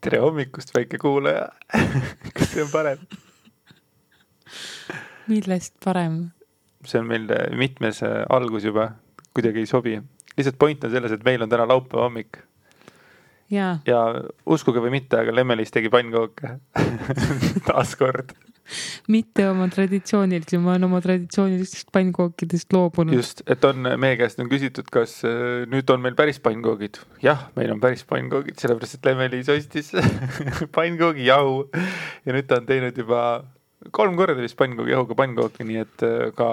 tere hommikust, väike kuulaja. Kas see on parem? Millest parem? See on meil mitmes algus juba, kuidagi ei sobi. Lihtsalt point on selles, et meil on täna laupäeva hommik. Ja uskuge või mitte, aga Lemmelis tegi pannkooke. Taas kord. Mitte oma traditsioonilisi, ma olen oma traditsioonilistest pannkookidest loobunud. Just, et meie käest on küsitud, kas nüüd on meil päris pannkoogid. Jah, meil on päris pannkoogid, sellepärast et Lemmelis ostis pannkoogi jahu. Ja nüüd ta on teinud juba 3 korda vist pannkoogi jahuga pannkooki, nii et ka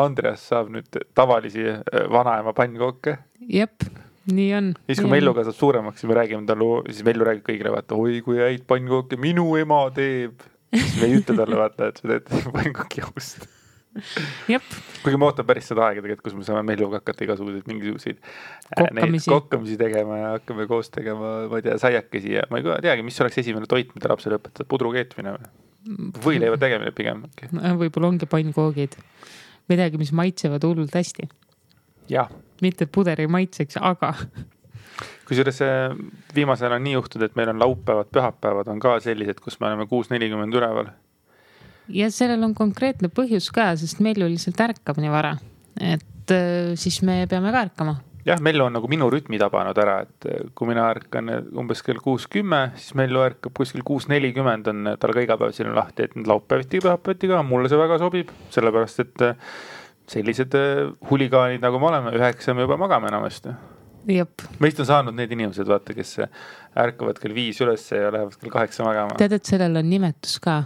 Andreas saab nüüd tavalisi vanaema pannkooke. Jep, nii on. Siis kui Mellu kasvab suuremaks, siis me räägime talle, siis Mellu räägib kõigile, vaata, oi kui häid pannkooke minu ema teeb. Siis me ei ütle talle, vaata, et sa teed pannkooki jahust. Jep. Kuigi ma ootan päris seda aega tegelikult, kus me saame Melluga hakata igasuguseid mingisuguseid kokkamisi tegema ja hakkame koos tegema, ma ei tea, saiakesi ja ma ei teagi, mis oleks esimene toit, mida lapsele õpetada, pudru keetmine või leiva tegemine pigem. Võib-olla ongi pannkoogid. Midagi, mis maitsevad hullult hästi. Jah. Mitte et puder ei maitseks, aga... Kusjuures viimasel on nii juhtud, et meil on laupäevad, pühapäevad on ka sellised, kus me oleme 6:40 üleval. Ja sellel on konkreetne põhjus ka, sest Mellu lihtsalt ärkab nii vara. Et siis me peame ka ärkama. Jah, Mellu on nagu minu rütmi tabanud ära, et kui mina ärkan umbes kell 6:10, siis Mellu ärkab kuskil 6:40 on tal ka iga päev siin lahti, et laupäeviti ja pühapäeviti ka, mulle see väga sobib, sellepärast et sellised huligaanid nagu me oleme, 9 me juba magame enamasti. Jep. Meist on saanud need inimesed, vaata, kes ärkavad kell 5 üles ja lähevad kell 8 magama. Tead, et sellel on nimetus ka?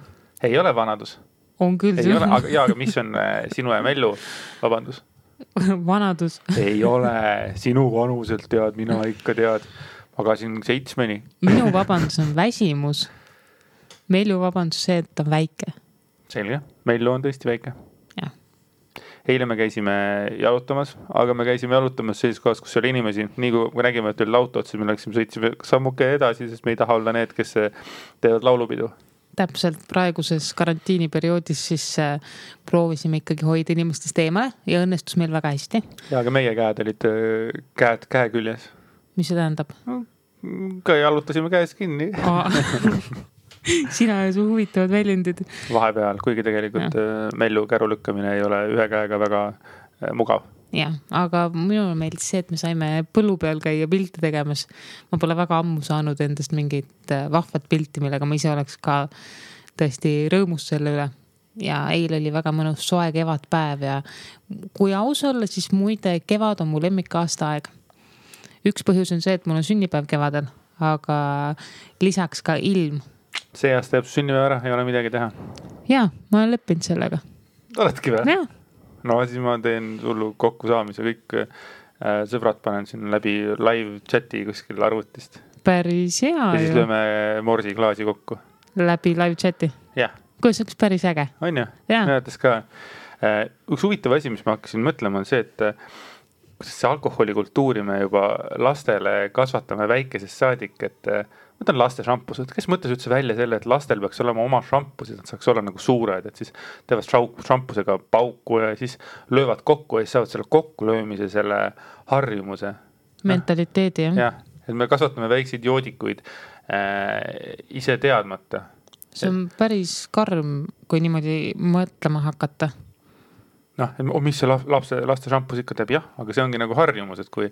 Ei ole vanadus. On küll. Ei ole, aga mis on sinu ja Mellu vabandus? Vanadus. Ei ole, sinu vanuselt tead, mina ikka tead. Magasin 7. Minu vabandus on väsimus. Mellu vabandus see, et on väike. Selge, Mellu on tõesti väike. Jah. Eile me käisime jalutamas, aga me käisime jalutamas sellises kohas, kus oli inimesi. Nii kui me nägime, et oli lautot, siis me sõitsime sammuke edasi, sest me ei taha olla need, kes teevad laulupidu. Täpselt praeguses karantiiniperioodis siis proovisime ikkagi hoida inimestest eemale ja õnnestus meil väga hästi. Ja aga meie käed olid käe küljes. Mis see tähendab? Ka jalutasime käes kinni. Sina ja su huvitavad väljendid. Vahepeal, kuigi tegelikult Mellu käru lükkamine ei ole ühe käega väga mugav. Jah, aga minul meeldis see, et me saime põllu peal käia pilti tegemas. Ma pole väga ammu saanud endast mingit vahvat pilti, millega ma ise oleks ka tõesti rõõmus selle üle. Ja eile oli väga mõnus soe kevadpäev ja kui aus olla, siis muide kevad on mu lemmik aastaaeg. Üks põhjus on see, et mul on sünnipäev kevadel, aga lisaks ka ilm. See aasta jääb sünnipäev ära, ei ole midagi teha. Jaa, ma olen leppinud sellega. Oledki või? Jah. No siis ma teen sullu kokku saamise, kõik sõbrad panen siin läbi live chati kuskil arvutist. Päris hea. Ja siis lööme morsi klaasi kokku. Läbi live chati? Jah. Kuidas oleks päris äge? On ju? Näetes ka. Üks huvitav asi, mis ma hakkasin mõtlema, on see, et kuidas see alkoholikultuuri me juba lastele kasvatame väikesest saadik, et mõtlen laste šampused. Kes mõtles üldse välja selle, et lastel peaks olema oma šampused, nad saaks olla nagu suured, et siis teevad šampusega pauku ja siis löövad kokku ja siis saavad selle kokkulöömise, selle harjumuse. Mentaliteedi, jah. Jah, et me kasvatame väikseid joodikuid ise teadmata. See on päris karm, kui niimoodi mõtlema hakata. Mis see laste šampus ikka teeb? Jah, aga see ongi nagu harjumus, et kui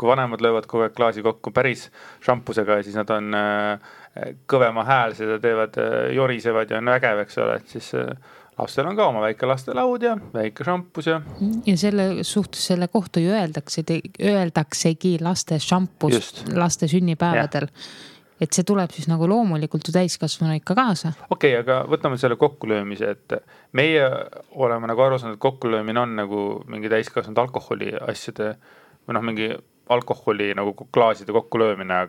vanemad löövad kogu aeg klaasi kokku päris šampusega ja siis nad on kõvema hääl, seda teevad, jorisevad ja on vägev, eks ole, et siis lastel on ka oma väike laste laud ja väike šampus ja... Ja selle suhtes selle kohta ju öeldaksegi laste šampus laste sünnipäevadel. Et see tuleb siis nagu loomulikult ju täiskasvanu ikka kaasa. Okei, aga võtame selle kokkulöömise, et meie oleme nagu aru saanud, et kokkulöömine on nagu mingi täiskasvanud alkoholi asjade või mingi alkoholi nagu klaaside kokkulöömine,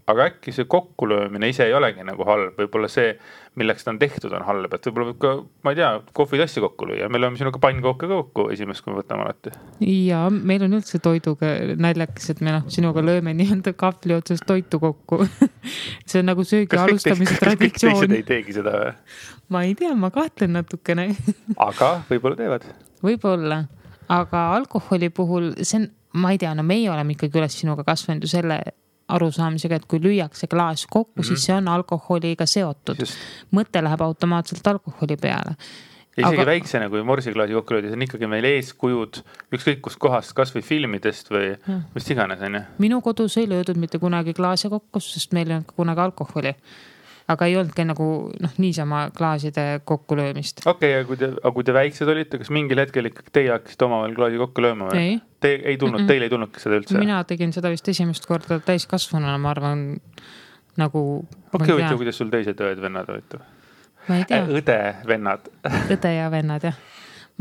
aga äkki see kokkulöömine ise ei olegi nagu halb. Võib-olla see, milleks ta on tehtud, on halb. Et võib-olla võib ka, ma ei tea, kohvitassi kokku lüüa. Me lööme sinuga pannkooke kokku esimest, kui me võtame alati. Ja meil on üldse toiduga naljakas, et me sinuga lööme nii-öelda kahvli otsast toitu kokku. See on nagu söögi alustamise traditsioon. Kas kõik teised ei teegi seda või? Ma ei tea, ma kahtlen natukene. Aga võib-olla teevad. Võib-olla. Aga alkoholi puhul, see on, ma ei tea, meie oleme ikkagi üles sinuga kasvanud ju selle arusaamisega, et kui lüüakse klaas kokku, siis see on alkoholiga seotud. Mõte läheb automaatselt alkoholi peale. Ja isegi väiksena, kui morsiklaasi kokku löödi, see on ikkagi meil eeskujud ükskõik kust kohast, kas või filmidest või mis iganes on. Minu kodus ei löödud mitte kunagi klaase kokku, sest meil ei olnud kunagi alkoholi. Aga ei olnudki nagu niisama klaaside kokkulöömist. Okei, aga kui te väiksed olite, kas mingil hetkel ikkagi teie hakkasite omavahel klaasi kokku lööma? Või? Teil ei tulnudki seda üldse? Mina tegin seda vist esimest korda täiskasvanuna, ma arvan, nagu... Okei, kuidas sul teised õed-vennad olid? Ma ei tea. Õde-vennad. Õde ja vennad, jah.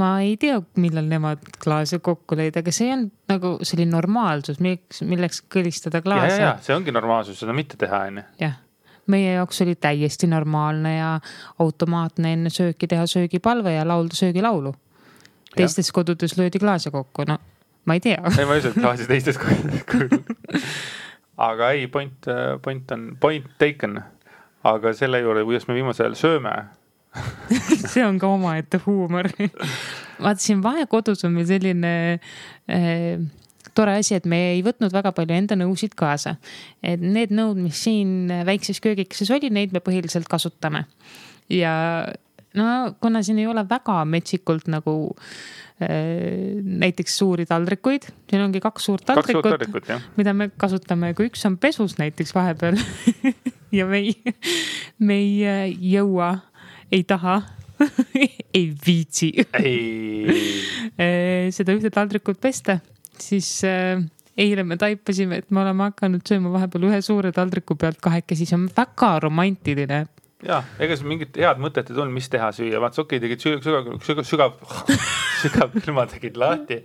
Ma ei tea, millal nemad klaase kokku lõid, aga see on nagu selline normaalsus, milleks kõlistada klaase. Ja, see ongi normaalsus, seda mitte teha, enne. Jah. Meie jaoks oli täiesti normaalne ja automaatne enne sööki teha söögipalve ja laulda söögilaulu. Teistes kodudes löödi klaase kokku, no ma ei tea. Ei, ma ei usu, et klaasi teistes kodudes. Aga ei, point taken. Aga selle juurde, kuidas me viimasel ajal sööme. See on ka oma ette huumor. Vaatasin vahekodus on meil selline... tore asi, et me ei võtnud väga palju enda nõusid kaasa. Et need nõud, mis siin väikses köögikeses oli, neid me põhiliselt kasutame. Ja no, kuna siin ei ole väga metsikult nagu näiteks suuri taldrikuid, siin ongi 2 suurt taldrikut, mida me kasutame, kui üks on pesus näiteks vahepeal ja me ei jõua, ei taha, ei viitsi seda ühte taldrikut pesta. Siis eile me taipasime, et me oleme hakanud sööma vahepeal ühe suure taldriku pealt 2, siis on väga romantiline. Ja, ega see mingit head mõtet ei tulnud, mis teha süüa. Vaats, okei, tegid sügav külma tegin lahti,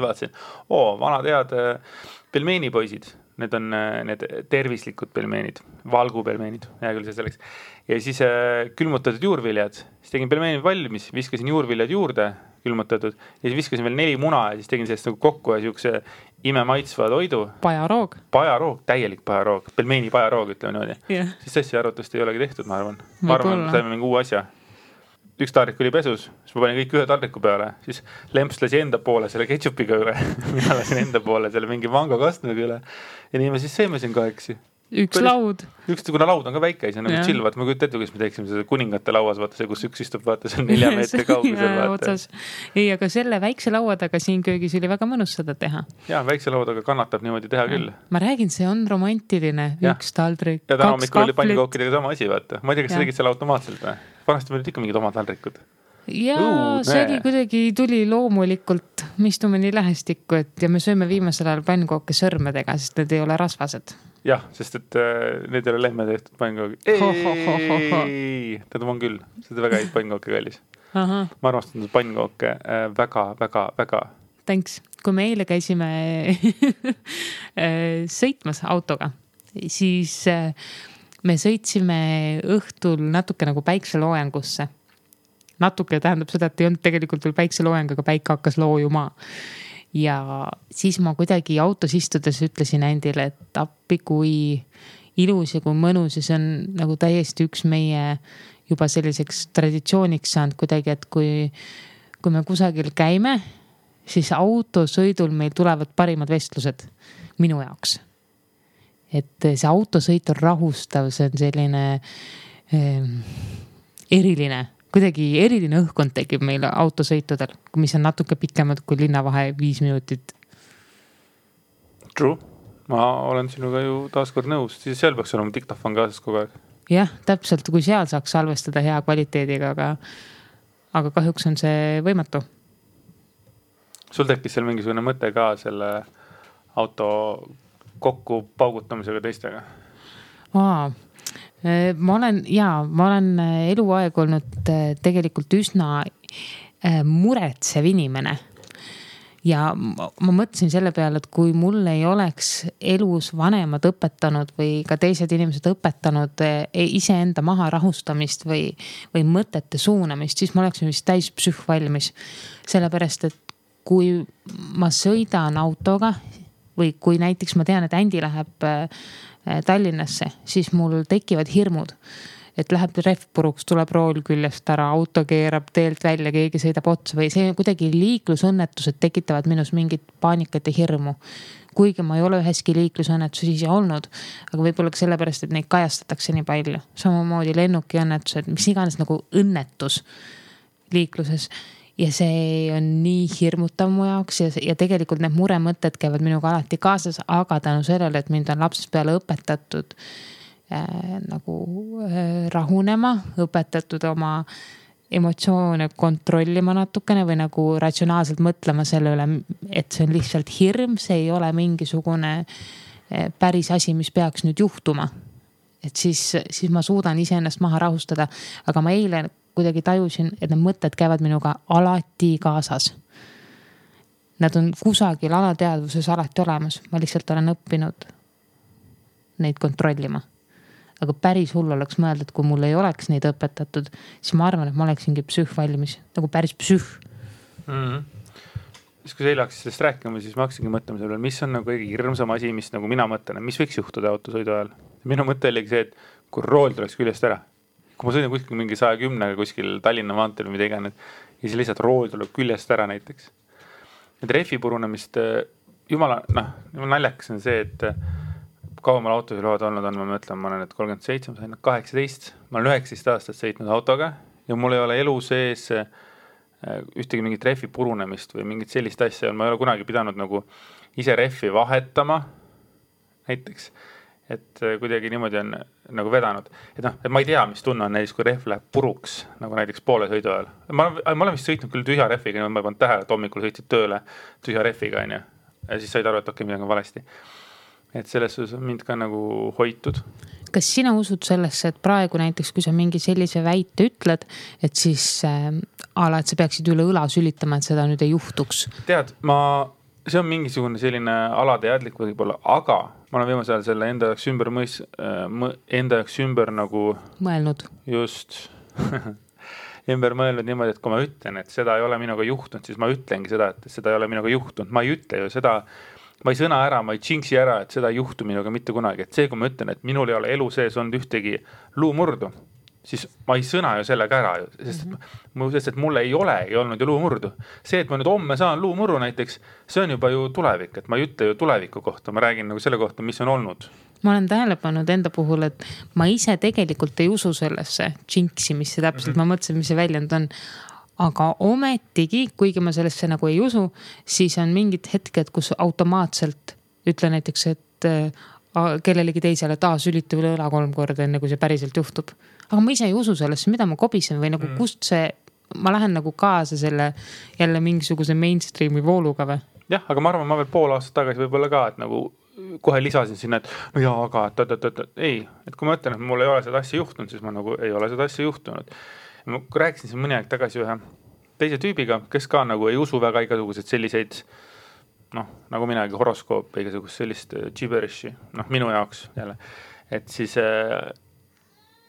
vaatasin. Vanad head pelmeenipoisid. Need on need tervislikud pelmeenid, valgupelmeenid, hea küll see selleks. Ja siis külmutatud juurviljad. Siis tegin pelmeenid valmis, viskasin juurviljad juurde, külmutatud. Ja siis viskasin veel 4 muna ja siis tegin sellest nagu kokku ja siukse imemaitsva toidu. Pajaroog, täielik pajaroog. Pelmeeni pajaroog, ütleme niimoodi. Yeah. Siis asja arvutust ei olegi tehtud, ma arvan. Ma arvan, saime mingi uue asja. Üks taldrik oli pesus, siis ma panin kõik ühe taldriku peale, siis lemps lasi enda poole selle ketšupiga üle, mina lasin enda poole selle mingi mango kastmega üle ja nii me siis seime siin kahekesi. Üks laud. Kuna laud on ka väike, see on nagu chill, vaata, ma kujutan ette, kuidas me teeksime seda kuningate lauas, vaata see, kus üks istub, vaata, see on 4 meetri kaugusel, vaata. Ei, aga selle väikse lauadaga siin köögis oli väga mõnus seda teha. Jaa, väikse lauadaga kannatab niimoodi teha küll. Ma räägin, see on romantiline, üks taldrik, 2 kahvlit. Ja hommikul oli pannikookidega sama asi, vaata. Ma ei tea, kas sa tegid selle automaatselt või? Vanasti meil olid ikka mingid omad taldrikud. Jaa, see oli kuidagi tuli loomulikult, me istume nii lähestikku, et ja me sööme viimasel ajal pannkooke sõrmedega, sest need ei ole rasvased. Jah, sest et need ei ole lehme tehtud pannkooke. Tähendab on küll, seda väga häid pannkooke kallis. Ma armastan pannkooke väga. Thanks. Kui me eile käisime sõitmas autoga, siis me sõitsime õhtul natuke nagu päikseloojangusse. Natuke tähendab seda, et ei olnud tegelikult veel päikseloojang, aga päike hakkas loojuma. Ja siis ma kuidagi autos istudes ütlesin endile, et appi kui ilus ja kui mõnus ja see on nagu täiesti üks meie juba selliseks traditsiooniks saanud kuidagi, et kui me kusagil käime, siis autosõidul meil tulevad parimad vestlused minu jaoks. Et see autosõit on rahustav, see on selline eriline, kuidagi eriline õhkkond tekib meil autosõitudel, mis on natuke pikemad kui linnavahe 5 minutit. True. Ma olen sinuga ju taaskord nõus, siis seal peaks olema diktafon kaasas kogu aeg. Jah, täpselt, kui seal saaks salvestada hea kvaliteediga, aga kahjuks on see võimatu. Sul tekkis seal mingisugune mõte ka selle auto kokku paugutamisega teistega? Ma olen eluaeg olnud tegelikult üsna muretsev inimene. Ja ma mõtlesin selle peale, et kui mul ei oleks elus vanemad õpetanud või ka teised inimesed õpetanud iseenda maha rahustamist või mõtete suunamist, siis ma oleksin vist täis psühvalmis. Sellepärast, et kui ma sõidan autoga või kui näiteks ma tean, et Ändi läheb Tallinnasse, siis mul tekivad hirmud. et läheb rehv puruks, tuleb rool küljest ära, auto keerab teelt välja, keegi sõidab otsa või see kuidagi liiklusõnnetused tekitavad minus mingit paanikat ja hirmu. Kuigi ma ei ole üheski liiklusõnnetuses ise olnud, aga võib-olla ka sellepärast, et neid kajastatakse nii palju. Samamoodi lennuki õnnetused, mis iganes nagu õnnetus liikluses. Ja see on nii hirmutav mu jaoks ja tegelikult need muremõtted käivad minuga alati kaasas, aga tänu sellele, et mind on lapsest peale õpetatud rahunema, õpetatud oma emotsioone kontrollima natukene või nagu ratsionaalselt mõtlema selle üle, et see on lihtsalt hirm, see ei ole mingisugune päris asi, mis peaks nüüd juhtuma. Et siis ma suudan iseennast maha rahustada, aga ma eile kuidagi tajusin, et need mõtted käivad minuga alati kaasas. Nad on kusagil alateadvuses alati olemas, ma lihtsalt olen õppinud neid kontrollima. Aga päris hull oleks mõelda, et kui mul ei oleks neid õpetatud, siis ma arvan, et ma oleksingi psühh valmis, nagu päris psühh. Siis kui sa eile hakkasid sellest rääkima, siis ma hakkasingi mõtlema selle, mis on nagu kõige hirmsam asi, mis nagu mina mõtlen, mis võiks juhtuda autosõidu ajal. Minu mõte oligi see, et kui rool tuleks küljest ära, kui ma sõidin kuskil mingi 110 kuskil Tallinna maanteel või mida iganes, ja siis lihtsalt rool tuleb küljest ära näiteks. Et rehvi purunemist, jumala naljakas on see, et kaumal autosõiduload olnud on, ma mõtlen, ma olen nüüd 37, ma sain 18, ma olen 19 aastat sõitnud autoga ja mul ei ole elu sees ühtegi mingit rehvi purunemist või mingit sellist asja, ma ei ole kunagi pidanud nagu ise rehvi vahetama näiteks, et kuidagi niimoodi on nagu vedanud. Et ma ei tea, mis tunne on näiteks, kui rehv läheb puruks, nagu näiteks poole sõidu ajal. Ma olen vist sõitnud küll tühja rehviga, ma ei pannud tähele, et hommikul sõitsid tööle tühja rehviga, ja siis said aru, et okei, midagi on valesti. Et selles suhtes on mind ka nagu hoitud. Kas sina usud sellesse, et praegu näiteks, kui sa mingi sellise väite ütled, et siis et sa peaksid üle õla sülitama, et seda nüüd ei juhtuks? Tead, see on mingisugune selline alateadlik võib-olla, aga ma olen viimasel ajal selle enda jaoks ümber nagu mõelnud. Just ümber mõelnud niimoodi, et kui ma ütlen, et seda ei ole minuga juhtunud, siis ma ütlengi seda, et seda ei ole minuga juhtunud. Ma ei ütle ju seda, ma ei sõna ära, ma ei jinksi ära, et seda ei juhtu minuga mitte kunagi. Et see, kui ma ütlen, et minul ei ole elu sees olnud ühtegi luumurdu, siis ma ei sõna ju sellega ära, sest et mul ei olnud ju luumurdu. See, et ma nüüd homme saan luumurru näiteks, see on juba ju tulevik, et ma ei ütle ju tuleviku kohta, ma räägin nagu selle kohta, mis on olnud. Ma olen tähele pannud enda puhul, et ma ise tegelikult ei usu sellesse jinksi, mis see täpselt, ma mõtlesin, mis see väljend on. Aga ometigi, kuigi ma sellesse nagu ei usu, siis on mingid hetked, kus automaatselt ütle näiteks, et kellelegi teisele, et sülita üle õla 3 korda, enne kui see päriselt juhtub. Aga ma ise ei usu sellesse, mida ma kobisen või nagu kust see, ma lähen nagu kaasa selle jälle mingisuguse mainstreami vooluga või? Jah, aga ma arvan, ma veel pool aastat tagasi võib-olla ka, et nagu kohe lisasin sinna, et no jaa, aga ei, et kui ma ütlen, et mul ei ole seda asja juhtunud, siis ma nagu ei ole seda asja juhtunud. Ma rääkisin siin mõni aeg tagasi ühe teise tüübiga, kes ka nagu ei usu väga igasugused selliseid, nagu minagi horoskoop, igasugust sellist gibberishi, minu jaoks jälle. Et siis,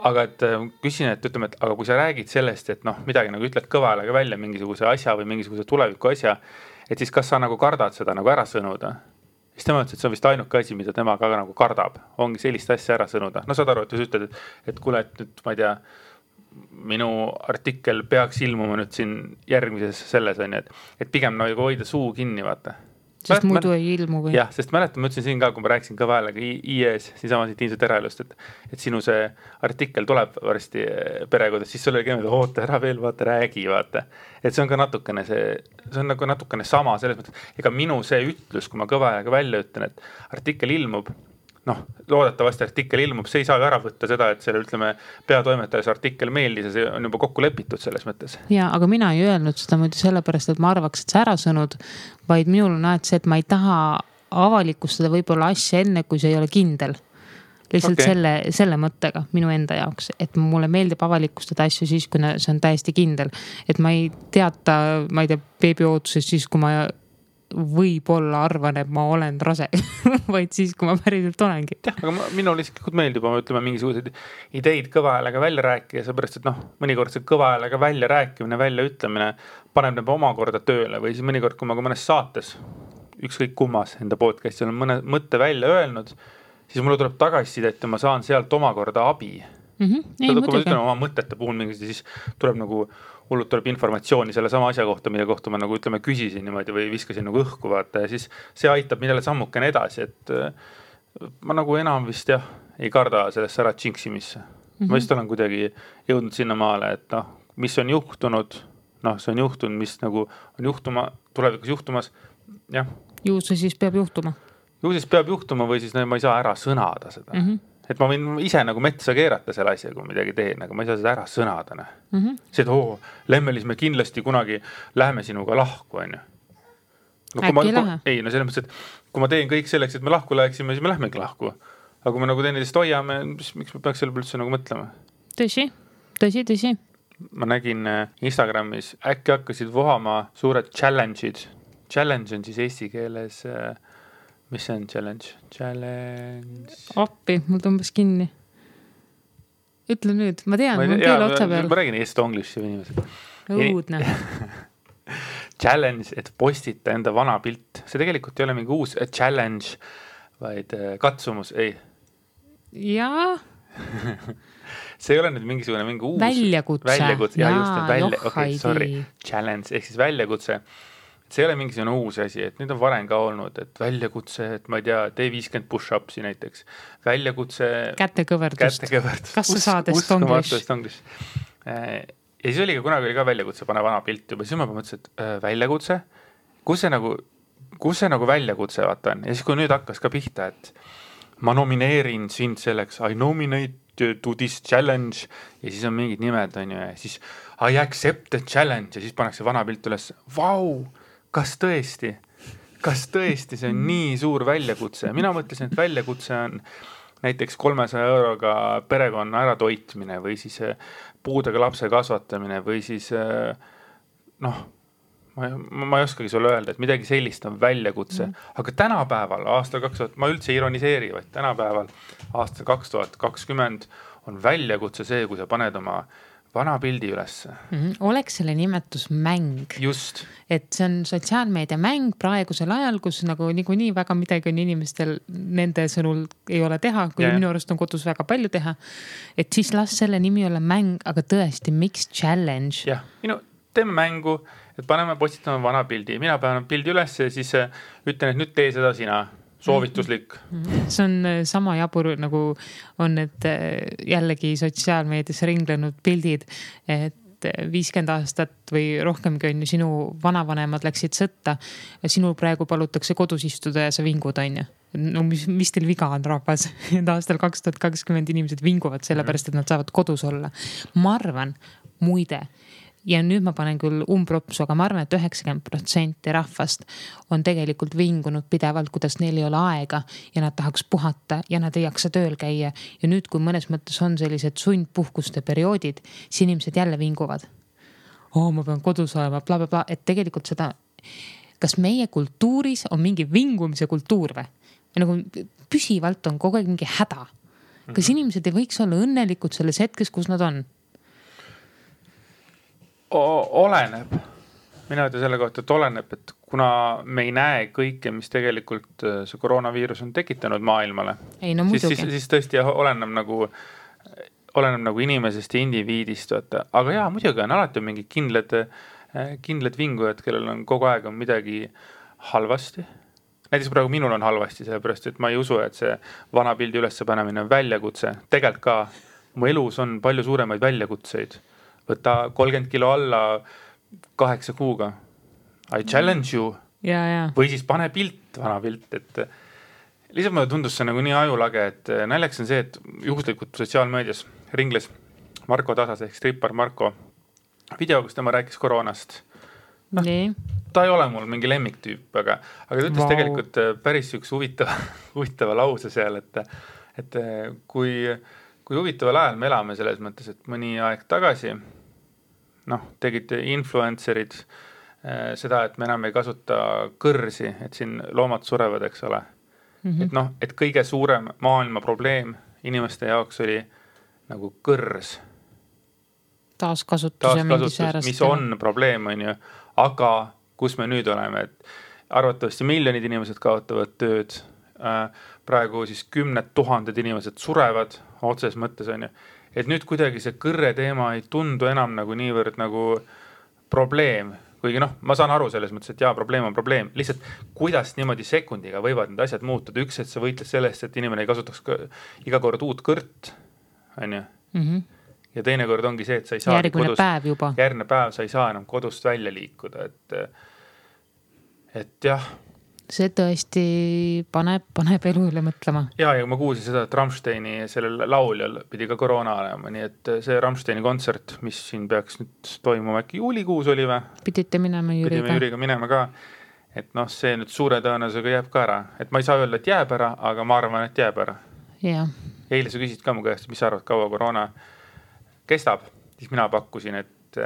aga et küsin, et ütleme, et aga kui sa räägid sellest, et midagi nagu ütled kõva häälega välja mingisuguse asja või mingisuguse tuleviku asja, et siis kas sa nagu kardad seda nagu ära sõnuda? Siis tema ütles, et see on vist ainuke asi, mida tema ka nagu kardab, ongi sellist asja ära sõnuda. Saad aru, et sa ütled, et kuule, et nüüd, ma ei tea, minu artikkel peaks ilmuma nüüd siin järgmises selles on, et pigem nagu hoida suu kinni, vaata. Sest muidu ei ilmu või? Jah, sest mäletan, ma ütlesin siin ka, kui ma rääkisin kõva häälega IES, siinsama siit Tiimset eraelust, et sinu see artikkel tuleb varsti perekodas, siis sul oli keemid, oota ära veel, vaata, räägi, vaata. Et see on ka natukene see on nagu natukene sama selles mõttes, ega minu see ütlus, kui ma kõva häälega välja ütlen, et artikkel ilmub, loodetavasti artikkel ilmub, see ei saa ju ära võtta seda, et selle ütleme peatoimetajas artikkel meeldis ja see on juba kokku lepitud selles mõttes. Ja, aga mina ei öelnud seda muidu sellepärast, et ma arvaks, et see ära sõnud, vaid minul on see, et ma ei taha avalikustada võib-olla asja enne, kui see ei ole kindel. Lihtsalt selle mõttega minu enda jaoks, et mulle meeldib avalikustada asju siis, kui see on täiesti kindel. Et ma ei teata, ma ei tea, beebiootusest siis, kui ma võib-olla arvan, et ma olen rase, vaid siis, kui ma päriselt olengi. Jah, aga minul isiklikult meeldib, ütleme, mingisuguseid ideid kõva häälega välja rääkida, seepärast, et mõnikord see kõva häälega välja rääkimine, välja ütlemine paneb need omakorda tööle või siis mõnikord, kui ma ka mõnes saates, ükskõik kummas enda podcastil on mõne mõtte välja öelnud, siis mulle tuleb tagasisidet ja ma saan sealt omakorda abi. Ei, kui ma muidugi. ütlen oma mõtete puhul mingid, siis tuleb nagu hullult tuleb informatsiooni selle sama asja kohta, mille kohta ma nagu ütleme küsisin niimoodi või viskasin nagu õhku vaata ja siis see aitab millele sammukene edasi, et ma nagu enam vist jah, ei karda sellesse ära džinksimisse. Ma vist olen kuidagi jõudnud sinna maale, et noh, mis on juhtunud, noh, see on juhtunud, mis nagu on juhtuma, tulevikus juhtumas, jah. Ju see siis peab juhtuma. Ju siis peab juhtuma või siis ma ei saa ära sõnada seda. Et ma võin ise nagu metsa keerata selle asja, kui midagi teen, aga ma ei saa seda ära sõnada. See, et Lemmelis me kindlasti kunagi läheme sinuga lahku, on ju. No, Äkki lähe? Ei, no selles mõttes, et kui ma teen kõik selleks, et me lahku läheksime, siis me lähmegi lahku. Aga kui me nagu teineteist hoiame, miks me peaks selle üldse nagu mõtlema? Tõsi. Ma nägin Instagramis, äkki hakkasid vohama suured challenge'id. Challenge on siis eesti keeles... Mis see on challenge? Appi, mul tõmbas kinni. Ütle nüüd, ma tean, mul keel otsa peal. Ma räägin eesti-english inimesed. Õudne. Challenge, et postita enda vana pilt. See tegelikult ei ole mingi uus challenge, vaid katsumus, ei. Jaa. See ei ole nüüd mingi uus... Väljakutse. Ja just, okay, sorry. Challenge, ehk siis väljakutse. See ei ole mingisugune uus asi, et nüüd on varem ka olnud, et väljakutse, et ma ei tea, tee 50 push-upsi näiteks. Väljakutse... Kätekõverdust. Kas sa saad estonglish? Ja siis oli kunagi ka väljakutse, pane vana pilt juba. Siis ma mõtlesin, et väljakutse? Kus see nagu väljakutse vaata on? Ja siis kui nüüd hakkas ka pihta, et ma nomineerin sind selleks, I nominate to this challenge ja siis on mingid nimed, on ju, ja siis I accept the challenge ja siis pannakse vana pilt üles. Vau! Kas tõesti see on nii suur väljakutse? Mina mõtlesin, et väljakutse on näiteks 300 euroga perekonna ära toitmine või siis puudega lapse kasvatamine või siis noh, ma ei oskagi sulle öelda, et midagi sellist on väljakutse. Aga tänapäeval, aastal 2000, ma üldse ironiseeri, vaid tänapäeval aastal 2020 on väljakutse see, kui sa paned oma vana pildi ülesse. Oleks selle nimetus mäng. Just. Et see on sotsiaalmeedia mäng praegusel ajal, kus nagu nii väga midagi on inimestel nende sõnul ei ole teha, kui minu arust on kodus väga palju teha. Et siis las selle nimi ole mäng, aga tõesti, miks challenge? Jah, teeme mängu, et paneme postitama vana pildi. Mina panen pildi üles ja siis ütlen, et nüüd tee seda sina. Soovituslik. See on sama jabur, nagu on need jällegi sotsiaalmeedias ringlenud pildid, et 50 aastat või rohkemgi on ju sinu vanavanemad läksid sõtta ja sinul praegu palutakse kodus istuda ja sa vingud, on ju. No mis teil viga on, rahvas? Aastal 2020 inimesed vinguvad sellepärast, et nad saavad kodus olla. Ma arvan, muide, ja nüüd ma panen küll umbropsu, aga ma arvan, et 90% rahvast on tegelikult vingunud pidevalt, kuidas neil ei ole aega ja nad tahaks puhata ja nad ei jaksa tööl käia. Ja nüüd, kui mõnes mõttes on sellised sundpuhkuste perioodid, siis inimesed jälle vinguvad. Ma pean kodus olema, bla, bla, bla, et tegelikult seda, kas meie kultuuris on mingi vingumise kultuur või? Nagu püsivalt on kogu aeg mingi häda. Kas inimesed ei võiks olla õnnelikud selles hetkes, kus nad on? Oleneb. Mina ütlen selle kohta, et oleneb, et kuna me ei näe kõike, mis tegelikult see koroonaviirus on tekitanud maailmale, ei, no siis tõesti oleneb nagu inimesest ja indiviidist. Aga jaa, muidugi on alati mingi kindlad vingujad, kellel on kogu aeg on midagi halvasti. Näiteks praegu minul on halvasti, sellepärast, et ma ei usu, et see vana pildi ülesse panemine on väljakutse. Tegelikult ka mu elus on palju suuremaid väljakutseid. Võta 30 kilo alla 8 kuuga. I challenge you. Ja. Või siis pane pilt, vana pilt. Et lihtsalt mulle tundus see nagu nii ajulage, et näljaks on see, et juhuslikult sotsiaalmeedias ringles Marko Tasas ehk strippar Marko video, kus tema rääkis koroonast. Ta ei ole mul mingi lemmiktüüp, aga ta ütles tegelikult päris üks huvitava lause seal, et kui huvitaval ajal me elame selles mõttes, et mõni aeg tagasi tegid influencerid seda, et me enam ei kasuta kõrsi, et siin loomad surevad, eks ole. Et kõige suurem maailma probleem inimeste jaoks oli nagu kõrs. Taaskasutus, mis on probleem, on ju. Aga kus me nüüd oleme, et arvatavasti miljonid inimesed kaotavad tööd, praegu siis 10 000 inimesed surevad otses mõttes on ju. Et nüüd kuidagi see kõrre teema ei tundu enam nagu niivõrd nagu probleem, kuigi noh, ma saan aru selles mõttes, et jaa, probleem on probleem, lihtsalt kuidas niimoodi sekundiga võivad need asjad muutuda, üks, et sa võitles sellest, et inimene ei kasutaks iga kord uut kõrt, on ju. Ja teine kord ongi see, et sa ei saa järgmine päev sa ei saa enam kodust välja liikuda, et jah. See tõesti paneb elu üle mõtlema. Ja ma kuulsin seda, et Rammsteini sellel lauljal pidi ka koroona olema, nii et see Rammsteini kontsert, mis siin peaks nüüd toimuma äkki juulikuus oli või? Pidite minema Jüriga. Pidime Jüriga minema ka, et noh, see nüüd suure tõenäosusega jääb ka ära, et ma ei saa öelda, et jääb ära, aga ma arvan, et jääb ära. Ja. Eile sa küsid ka mu käest, mis sa arvad, kaua koroona kestab, siis mina pakkusin, et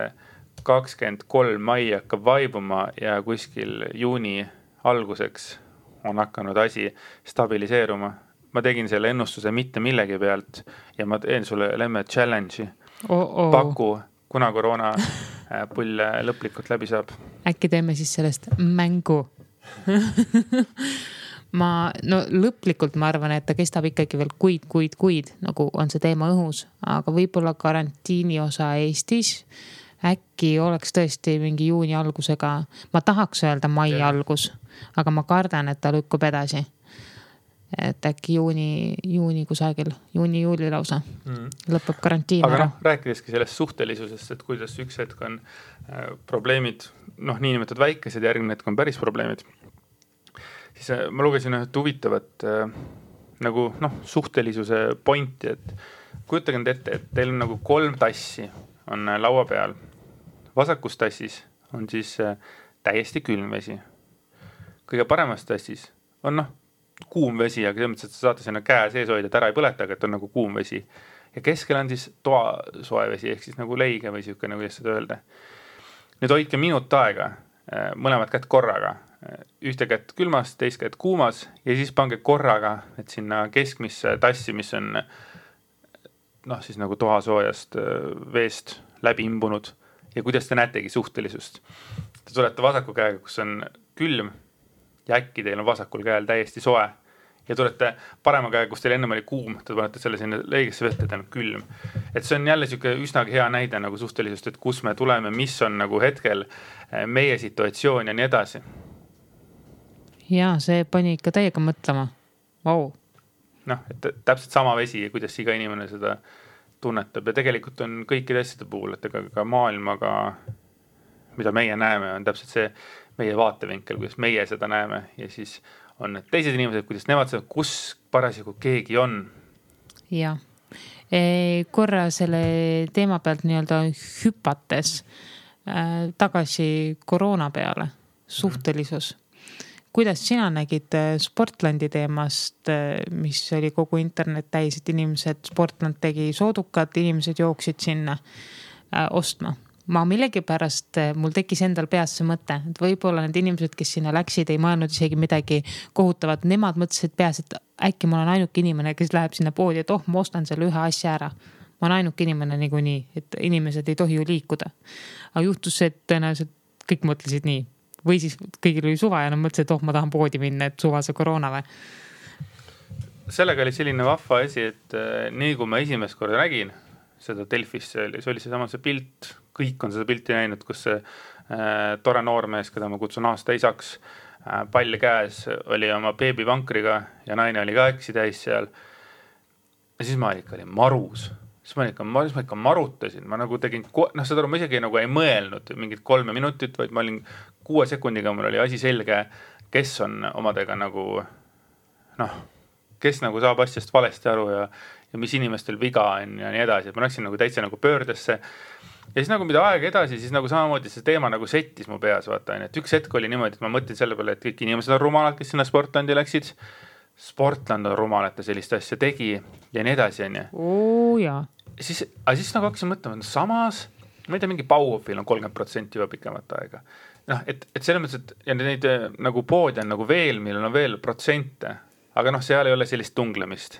23. mai hakkab vaibuma ja kuskil juuni alguseks on hakanud asi stabiliseeruma. Ma tegin selle ennustuse mitte millegi pealt ja ma teen sulle lemme challenge'i. Paku, kuna koroona pull lõplikult läbi saab. Äkki teeme siis sellest mängu. Lõplikult ma arvan, et ta kestab ikkagi veel kuid, nagu on see teema õhus, aga võib-olla karantiini osa Eestis äkki oleks tõesti mingi juuni algusega, ma tahaks öelda mai algus, aga ma kardan, et ta lükkub edasi. Et äkki juuni kusagil, juuni-juuli lausa lõpeb karantiin aga ära. Aga rääkideski sellest suhtelisusest, et kuidas üks hetk on probleemid, niinimetatud väikesed, järgmine hetk on päris probleemid. Siis ma lugesin üht huvitavat nagu suhtelisuse pointi, et kujutage nüüd ette, et teil on nagu 3 tassi on laua peal. Vasakus tassis on siis täiesti külm vesi. Kõige paremas tassis on kuum vesi, aga selles mõttes, et sa saate sinna käe sees hoida, et ära ei põleta, aga et on nagu kuum vesi. Ja keskel on siis toa soe vesi, ehk siis nagu leige või siuke, nagu seda öelda. Nüüd hoidke minut aega, mõlemad kätt korraga. Ühte kätt külmas, teist kätt kuumas ja siis pange korraga, et sinna keskmisse tassi, mis on siis nagu toasoojast veest läbi imbunud. Ja kuidas te näetegi suhtelisust? Te tulete vasaku käega, kus on külm ja äkki teil on vasakul käel täiesti soe. Ja tulete parema käega, kus teil ennem oli kuum, te panete selle sinna leigesse vette, et on külm. Et see on jälle siuke üsnagi hea näide nagu suhtelisust, et kus me tuleme, mis on nagu hetkel meie situatsioon ja nii edasi. Ja see pani ikka täiega mõtlema. Vau. Et täpselt sama vesi, kuidas iga inimene seda tunnetab ja tegelikult on kõikide asjade puhul, et ka maailmaga, mida meie näeme, on täpselt see meie vaatevinkel, kuidas meie seda näeme ja siis on need teised inimesed, kuidas nemad seda, kus parasjagu keegi on. Ja. Korra selle teema pealt nii-öelda hüpates tagasi koroona peale, suhtelisus. Kuidas sina nägid Sportlandi teemast, mis oli kogu internet täis, et inimesed, Sportland tegi soodukad, inimesed jooksid sinna ostma. Ma millegi pärast, mul tekkis endal peas see mõte, et võib-olla need inimesed, kes sinna läksid, ei mõelnud isegi midagi kohutavat. Nemad mõtlesid peas, et äkki ma olen ainuke inimene, kes läheb sinna poodi, et ma ostan selle ühe asja ära. Ma olen ainuke inimene niikuinii, et inimesed ei tohi ju liikuda. Aga juhtus see, et tõenäoliselt kõik mõtlesid nii. Või siis kõigil oli suva ja nad mõtlesid, et ma tahan poodi minna, et suva see koroona või? Sellega oli selline vahva asi, et nii kui ma esimest korda nägin seda Delfis, see oli see pilt, kõik on seda pilti näinud, kus see tore noormees, keda ma kutsun aasta isaks, pall käes oli oma beebivankriga ja naine oli ka äksi täis seal. Ja siis ma olin marus. Siis ma ikka marutasin, ma nagu tegin, seda ma isegi nagu ei mõelnud mingid 3 minutit, vaid ma olin 6 sekundiga, mul oli asi selge, kes on omadega nagu, kes nagu saab asjast valesti aru ja mis inimestel viga on ja nii edasi, et ma läksin nagu täitsa nagu pöördesse. Ja siis nagu mida aeg edasi, siis nagu samamoodi see teema nagu settis mu peas, vaata, et üks hetk oli niimoodi, et ma mõtlen selle peale, et kõik inimesed on rumalad, kes sinna Sportlandi läksid. Sportland on rumal, et ta sellist asja tegi ja nii edasi, on ju. Siis nagu hakkasin mõtlema, samas, ma ei tea, mingi Bauhofil on 30% juba pikemat aega. Et selles mõttes, et ja neid nagu poodi on nagu veel, millel on veel protsente, aga seal ei ole sellist tunglemist.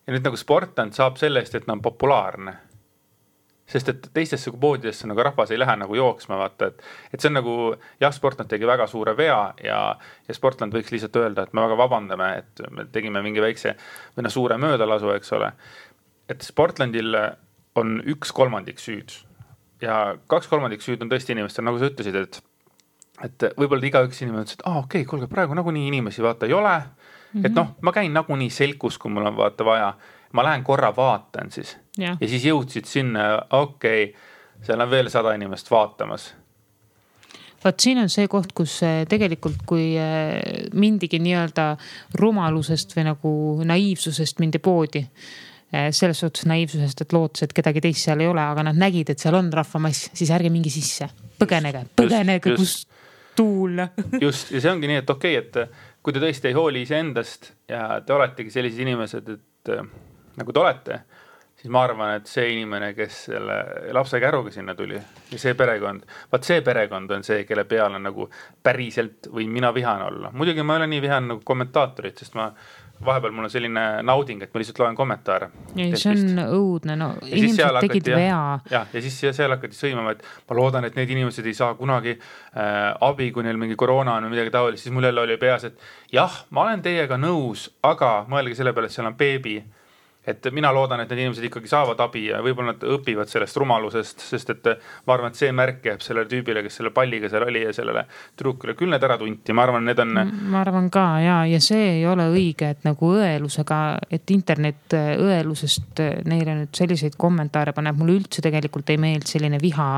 Ja nüüd nagu Sportland saab sellest, et ta on populaarne. sest et teistesse poodidesse nagu rahvas ei lähe nagu jooksma, vaata, et see on nagu, jah, Sportland tegi väga suure vea ja Sportland võiks lihtsalt öelda, et me väga vabandame, et me tegime mingi väikse või suure möödalasu, eks ole. Et Sportlandil on 1/3 süüd ja 2/3 süüd on tõesti inimestel, nagu sa ütlesid, et võib-olla igaüks inimene ütles, et okei, kuulge, praegu nagunii inimesi vaata ei ole, et noh, ma käin nagunii selkus, kui mul on vaata vaja, ma lähen korra vaatan siis ja siis jõudsid sinna, okei, seal on veel 100 inimest vaatamas. Vaat siin on see koht, kus tegelikult kui mindigi nii-öelda rumalusest või nagu naiivsusest mindi poodi, selles suhtes naiivsusest, et lootus, et kedagi teist seal ei ole, aga nad nägid, et seal on rahvamass, siis ärge mingi sisse, põgenege, kus tuul. Just, ja see ongi nii, et okei, et kui te tõesti ei hooli iseendast ja te oletegi sellised inimesed, et nagu te olete, siis ma arvan, et see inimene, kes selle lapse käruga sinna tuli ja see perekond, vaat see perekond on see, kelle peal on nagu päriselt või mina vihan olla. Muidugi ma ei ole nii vihan nagu kommentaatorid, sest vahepeal mul on selline nauding, et ma lihtsalt loen kommentaare. Ja see on õudne, no inimesed tegid vea. Ja siis seal hakati sõimama, et ma loodan, et need inimesed ei saa kunagi abi, kui neil mingi koroona on või midagi taolist, siis mul jälle oli peas, et jah, ma olen teiega nõus, aga mõelge selle peale, et seal on beebi. Et mina loodan, et need inimesed ikkagi saavad abi ja võib-olla nad õpivad sellest rumalusest, sest et ma arvan, et see märk jääb sellele tüübile, kes selle palliga seal oli ja sellele trukile küll need ära tunti. Ma arvan, need on... Ma arvan ka, ja see ei ole õige, et nagu õelusega, et internet õelusest neile nüüd selliseid kommentaare paneb. Mulle üldse tegelikult ei meeld selline viha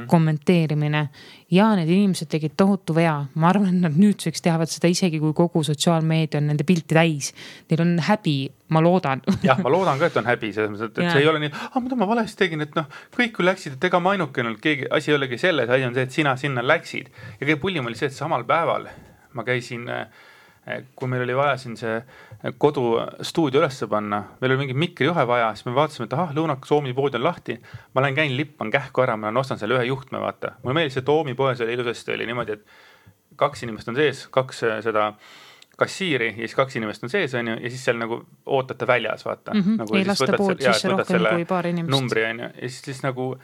kommenteerimine. Ja need inimesed tegid tohutu vea. Ma arvan, et nad nüüdseks teavad seda isegi, kui kogu sotsiaalmeedia on nende pilti täis. Neil on häbi, ma loodan. Jah, ma loodan ka, et on häbi. Et see ei ole nii, mida ma valesti tegin, et kõik kui läksid, et ega ma ainukene, asi ei olegi selles, asi on see, et sina sinna läksid. Ja kõige pullim oli see, et samal päeval ma käisin, kui meil oli vaja siin see kodustuudio ülesse panna, meil oli mingi mikrijuhe vaja, siis me vaatasime, et Lõunak Soomi pood on lahti, ma lähen käin lippan kähku ära, ma ostan selle ühe juhtme, vaata. Mulle meeldis, et Oomi poes oli ilusasti, oli niimoodi, et 2 inimest on sees, 2 seda kassiiri ja siis 2 inimest on sees, on ju, ja siis seal nagu ootate väljas, vaata. Nagu ei lasta pood sisse rohkem kui paar inimest. Numbri, on ju, ja siis nagu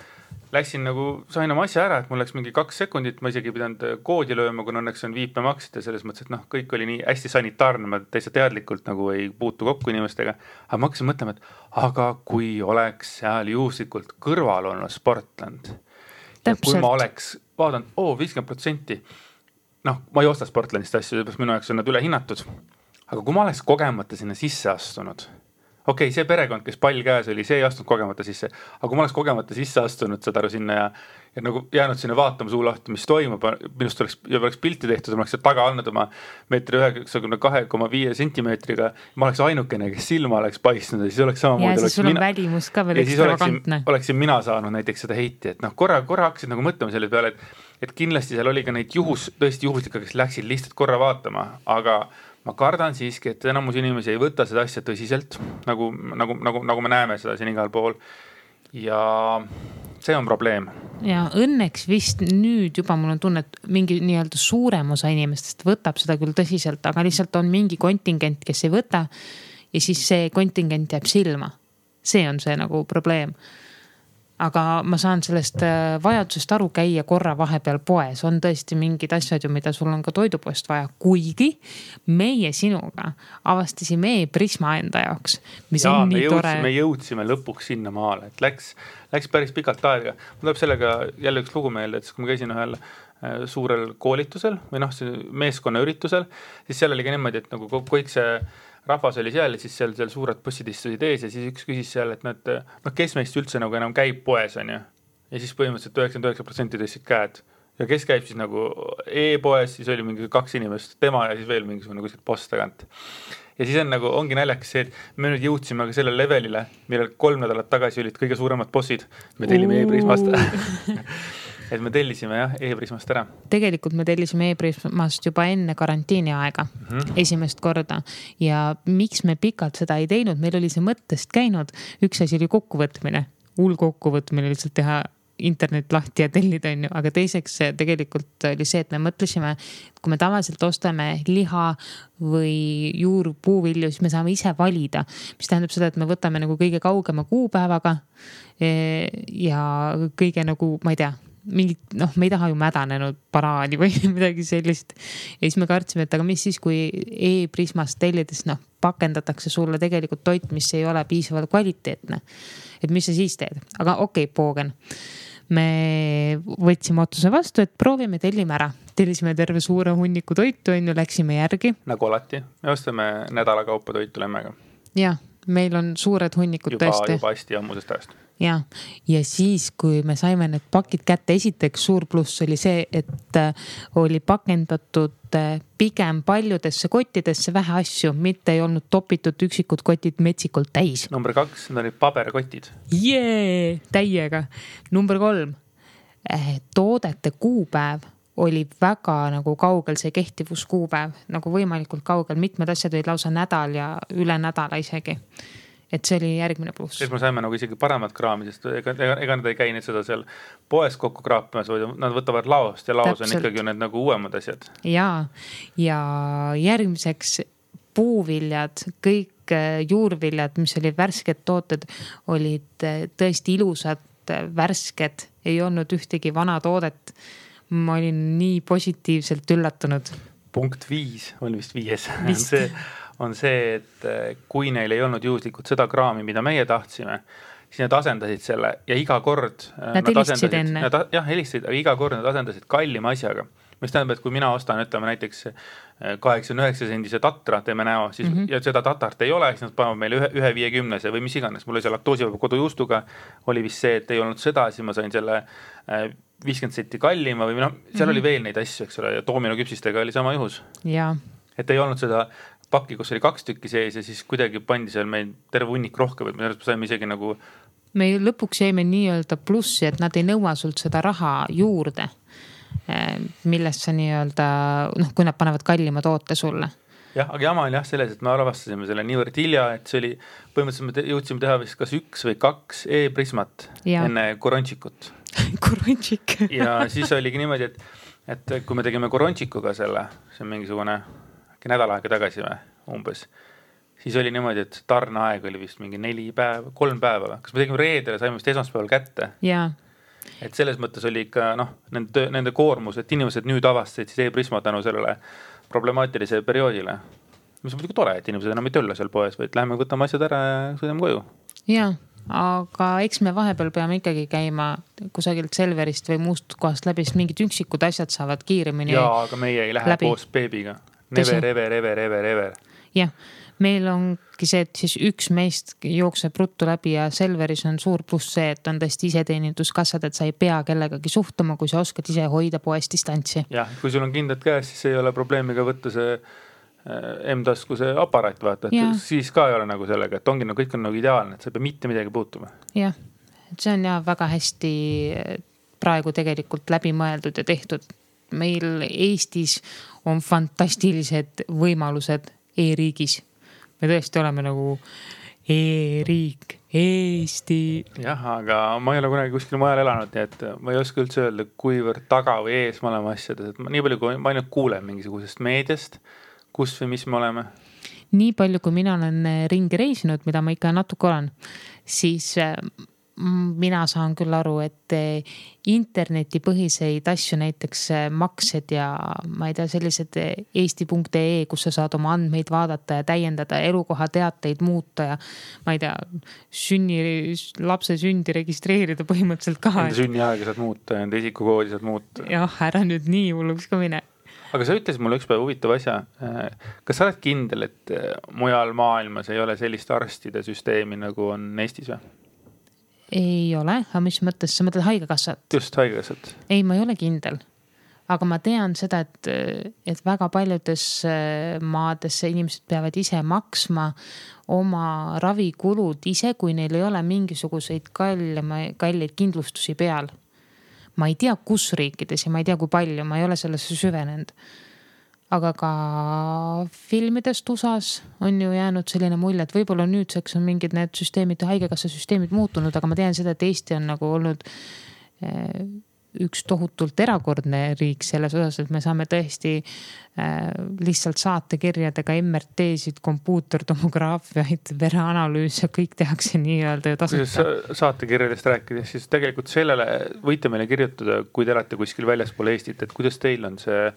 läksin nagu, sain oma asja ära, et mul läks mingi 2 sekundit, ma isegi pidanud koodi lööma, kui õnneks on viipemaksid ja selles mõttes, et kõik oli nii hästi sanitaarne, ma täitsa teadlikult nagu ei puutu kokku inimestega, aga ma hakkasin mõtlema, et aga kui oleks seal juhuslikult kõrval olnud Sportland ja kui ma oleks vaadanud, 50%, ma ei osta Sportlandist asju, minu jaoks on nad üle hinnatud, aga kui ma oleks kogemata sinna sisse astunud, okei, see perekond, kes pall käes oli, see ei astunud kogemata sisse, aga kui ma oleks kogemata sisse astunud seda sinna ja nagu jäänud sinna vaatama suu lahti, mis toimub, minust oleks pilti tehtud, ma oleks taga andnud oma 1,92,5 sentimeetriga, ma oleks ainukene, kes silma oleks paistnud ja siis oleks samamoodi. Ja siis sul on välimus ka veel ekstravagantne. Oleksin mina saanud näiteks seda heiti, et korra hakkasid nagu mõtlema selle peale, et kindlasti seal oli ka neid tõesti juhuslikke, kes läksid lihtsalt korra vaatama, aga ma kardan siiski, et enamus inimesi ei võta seda asja tõsiselt, nagu me näeme seda siin igal pool. Ja see on probleem. Ja õnneks vist nüüd juba mul on tunne, et mingi nii-öelda suurem osa inimestest võtab seda küll tõsiselt, aga lihtsalt on mingi kontingent, kes ei võta ja siis see kontingent jääb silma. See on see nagu probleem. Aga ma saan sellest vajadusest aru käia korra vahepeal poes. On tõesti mingid asjad ju, mida sul on ka toidupoest vaja. Kuigi meie sinuga avastasime e-Prisma enda jaoks, mis on nii tore. Me jõudsime lõpuks sinna maale, et läks päris pikalt aega. Mul tuleb sellega jälle üks lugu meelde, et kui ma käisin ühel suurel koolitusel või meeskonna üritusel, siis seal oli ka niimoodi, et nagu kõik see rahvas oli seal ja siis seal suured bussid istusid ees ja siis üks küsis seal, et kes meist üldse nagu enam käib poes, on ju. Ja siis põhimõtteliselt 99% tõstsid käed. Ja kes käib siis nagu e-poes, siis oli mingi 2 inimest, tema ja siis veel mingisugune kuskilt post tagant. Ja siis ongi naljakas see, et me nüüd jõudsime ka sellele levelile, millel 3 nädalat tagasi olid kõige suuremad bossid. Me tellime e-Prismast. Et me tellisime e-Prismast ära. Tegelikult me tellisime e-Prismast juba enne karantiini aega, esimest korda. Ja miks me pikalt seda ei teinud, meil oli see mõttest käinud. Üks asi oli kokkuvõtmine, kokkuvõtmine lihtsalt teha internet lahti ja tellida, on ju. Aga teiseks tegelikult oli see, et me mõtlesime, kui me tavaliselt ostame liha või juurpuuvilju, siis me saame ise valida, mis tähendab seda, et me võtame nagu kõige kaugema kuupäevaga ja kõige nagu, ma ei tea, mingit, me ei taha ju mädanenud banaani või midagi sellist. Ja siis me kartsime, et aga mis siis, kui e-Prismast tellides, pakendatakse sulle tegelikult toit, mis ei ole piisavalt kvaliteetne. Et mis sa siis teed? Aga okei, poogen. Me võtsime otsuse vastu, et proovime, tellime ära. Tellisime terve suure hunniku toitu, läksime järgi. Nagu alati. Me ostame nädala kaupa toitu lemmega. Ja, meil on suured hunnikud tõesti. Juba hästi ammusest ajast. Ja siis, kui me saime need pakid kätte, esiteks suur pluss oli see, et oli pakendatud pigem paljudesse kottidesse vähe asju, mitte ei olnud topitud üksikud kotid metsikult täis. Number 2, need olid paberkotid. Täiega. Number 3, toodete kuupäev oli väga nagu kaugel, see kehtivuskuupäev, nagu võimalikult kaugel, mitmed asjad olid lausa nädal ja üle nädala isegi. Et see oli järgmine pluss. Siis me saime nagu isegi paremat kraami, sest ega nad ei käi nüüd seda seal poes kokku kraapimas, vaid nad võtavad laost ja laos on ikkagi need nagu uuemad asjad. Ja järgmiseks puuviljad, kõik juurviljad, mis olid värsked tooted, olid tõesti ilusad, värsked, ei olnud ühtegi vana toodet. Ma olin nii positiivselt üllatunud. Punkt 5 on vist 5. On see, et kui neil ei olnud juhuslikult seda kraami, mida meie tahtsime, siis nad asendasid selle ja iga kord nad helistasid enne. Helistasid, aga iga kord nad asendasid kallima asjaga. Mis tähendab, et kui mina ostan, ütleme näiteks 89 sendise tatra teeme näo, siis, ja seda tatart ei ole, siis nad panevad meile 1,50 või mis iganes. Mul oli see laktoosivaba kodujuustuga, oli vist see, et ei olnud seda, siis ma sain selle 50 senti kallima või seal oli veel neid asju, eks ole, ja doomino küpsistega oli sama juhus. Ja. Et ei olnud seda pakki, kus oli 2 tükki sees ja siis kuidagi pandi seal meil terve hunnik rohkem, et me saime isegi nagu... Me lõpuks jäime nii-öelda plussi, et nad ei nõua sult seda raha juurde, millest sa nii-öelda, kui nad panevad kallima toote sulle. Jah, aga jama oli selles, et me arvastasime selle niivõrd hilja, et see oli, põhimõtteliselt me jõudsime teha vist kas 1 või 2 e-Prismat enne korončikut. Korončik. Ja siis oligi niimoodi, et kui me tegime korončikuga selle, see on mingisugune nädal aega tagasi või umbes, siis oli niimoodi, et tarneaeg oli vist mingi 3 päeva. Kas me tegime reedele, saime vist esmaspäeval kätte? Jaa. Et selles mõttes oli ikka nende koormus, et inimesed nüüd avastasid siis e-Prisma tänu sellele problemaatilise perioodile. Mis on muidugi tore, et inimesed enam ei tölle seal poes, vaid läheme võtame asjad ära ja sõidame koju. Jaa, aga eks me vahepeal peame ikkagi käima kusagilt Selverist või muust kohast läbi, sest mingid üksikud asjad saavad kiiremini. Jaa, aga meie ei lähe koos beebiga. Never. Jah, meil ongi see, et siis üks meist jookseb ruttu läbi ja Selveris on suur pluss see, et on tõesti iseteeninduskassad, et sa ei pea kellegagi suhtuma, kui sa oskad ise hoida poes distantsi. Jah, kui sul on kindlad käes, siis ei ole probleemiga võtta see M-tasku see aparaat, vaata, et siis ka ei ole nagu sellega, et ongi kõik on nagu ideaalne, et sa ei pea mitte midagi puutuma. Jah, et see on väga hästi praegu tegelikult läbi mõeldud ja tehtud. Meil Eestis on fantastilised võimalused e-riigis. Me tõesti oleme nagu e-riik, Eesti. Jah, aga ma ei ole kunagi kuskil mujal elanud, nii et ma ei oska üldse öelda, kuivõrd taga või ees me oleme asjades. Et nii palju, kui ma ainult kuulen mingisugusest meediast, kus või mis me oleme. Nii palju, kui mina olen ringi reisinud, mida ma ikka natuke olen, siis mina saan küll aru, et internetipõhiseid asju, näiteks maksed ja ma ei tea, sellised eesti.ee, kus sa saad oma andmeid vaadata ja täiendada, elukoha teateid muuta ja ma ei tea, lapse sündi registreerida põhimõtteliselt ka. Enda sünniaega saad muuta, enda isikukoodi saad muuta. Jah, ära nüüd nii hulluks ka mine. Aga sa ütlesid mulle üks päev huvitav asja. Kas sa oled kindel, et mujal maailmas ei ole sellist arstide süsteemi nagu on Eestis või? Ei ole, aga mis mõttes, sa mõtled haigekassat? Just, haigekassat. Ei, ma ei ole kindel. Aga ma tean seda, et väga paljudes maades inimesed peavad ise maksma oma ravikulud ise, kui neil ei ole mingisuguseid kalleid kindlustusi peal. Ma ei tea, kus riikides ja ma ei tea, kui palju, ma ei ole sellesse süvenenud. Aga ka filmidest USAs on ju jäänud selline mulje, et võib-olla nüüdseks on mingid need süsteemid, haigekassa süsteemid muutunud, aga ma tean seda, et Eesti on nagu olnud üks tohutult erakordne riik selles osas, et me saame tõesti lihtsalt saatekirjadega MRT-sid, kompuutertomograafiaid, vereanalüüse, kõik tehakse nii-öelda tasuta. Saatekirjadest rääkides, siis tegelikult sellele võite meile kirjutada, kui te olete kuskil väljaspool Eestit, et kuidas teil on see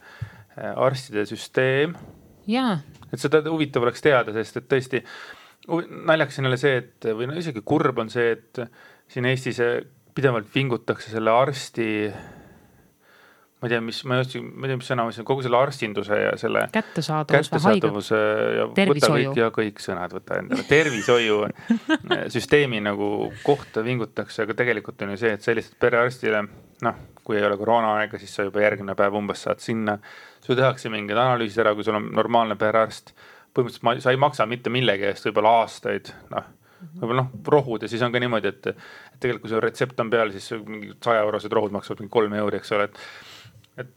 arstide süsteem. Jaa. Et seda huvitav oleks teada, sest et tõesti naljaks on jälle see, et või no isegi kurb on see, et siin Eestis pidevalt vingutakse selle arsti, ma ei tea, mis sõna, kogu selle arstinduse ja selle kättesaadavuse ja tervishoiu. Võta kõik sõnad, võta endale. Tervishoiu süsteemi nagu kohta vingutakse, aga tegelikult on ju see, et sellised perearstile, kui ei ole koroona aega, siis sa juba järgmine päev umbes saad sinna. Sul tehakse mingid analüüsid ära, kui sul on normaalne perearst. Põhimõtteliselt sa ei maksa mitte millegi eest võib-olla aastaid, võib-olla rohud ja siis on ka niimoodi, et tegelikult kui see retsept on peal, siis mingi 100-eurosed rohud maksavad mingi 3 euri, eks ole, et